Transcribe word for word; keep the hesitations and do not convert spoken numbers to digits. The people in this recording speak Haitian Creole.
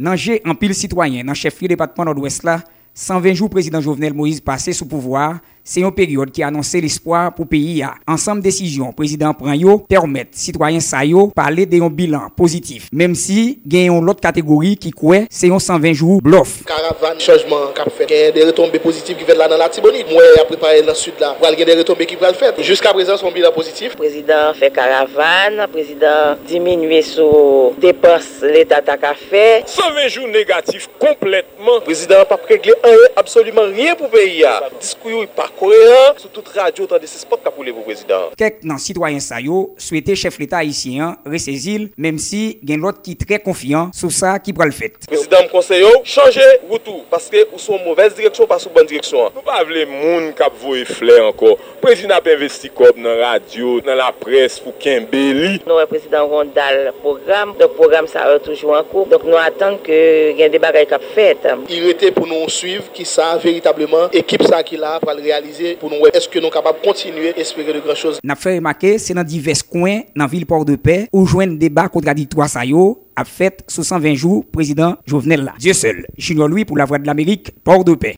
Nan je anpil sitwayen nan chèflye depatman Nòdwès la, san ven jou prezidan Jovenel Moïse pase sou pouvwa a, se yon peryòd ki anonse lespwa pou peyi a. Ansanm desizyon prezidan an pran yo pèmèt sitwayen sa yo pale de yon bilan pozitif, menm si gen yon lòt kategori ki kwè se yon san ven jou blòf. Karavàn chanjman k ap fèt, gen de retonbe pozitif ki fèt la nan Latibonit. Mwen, y ap prepare nan Sid la, pral gen de retonbe ki pral fèt. Jiskaprezan, se yon bilan pozitif. Prezidan fè karavàn, prezidan diminye sou depans Leta ta ka fè. San ven jou negatif konplètman. Prezidan an p ap regle anyen, absoliman ryen pou peyi a. Diskou yo pa koeran. Sou tout radyo, w tande se spòt k ap woule pou prezidan an. Kèk nan sitwayen sa yo swete chèf Leta ayisyen an resezi l, menm si gen lòt ki trè konfyan sou sa ki pral fèt. Prezidan, m konseye w chanje wout ou, paske ou sou yon movèz direksyon, ou pa sou bòn direksyon an. Nou pa vle moun k ap voye flè ankò. Prezidan ap envesti kòb nan radyo, nan laprès pou kenbe li. Nou wè prezidan gen yon dal pwogram, donk pwogram sa yo toujou an kou. Donk nou atann ke gen de bagay k ap fèt. Li rete pou nou swiv kisa veritableman ekip sa ki la pral reyalize, pou nou wè èske nou kapab kontinye espere de gran choz. N ap fè remake, se nan divès kwen nan vil Pòdepè ou jwenn deba kontradiktwa sa yo ap fèt sou san ven jou prezidan Jovenel la. Dieuseul Junior Louis pou Lavwadlamerik, Pòdepè.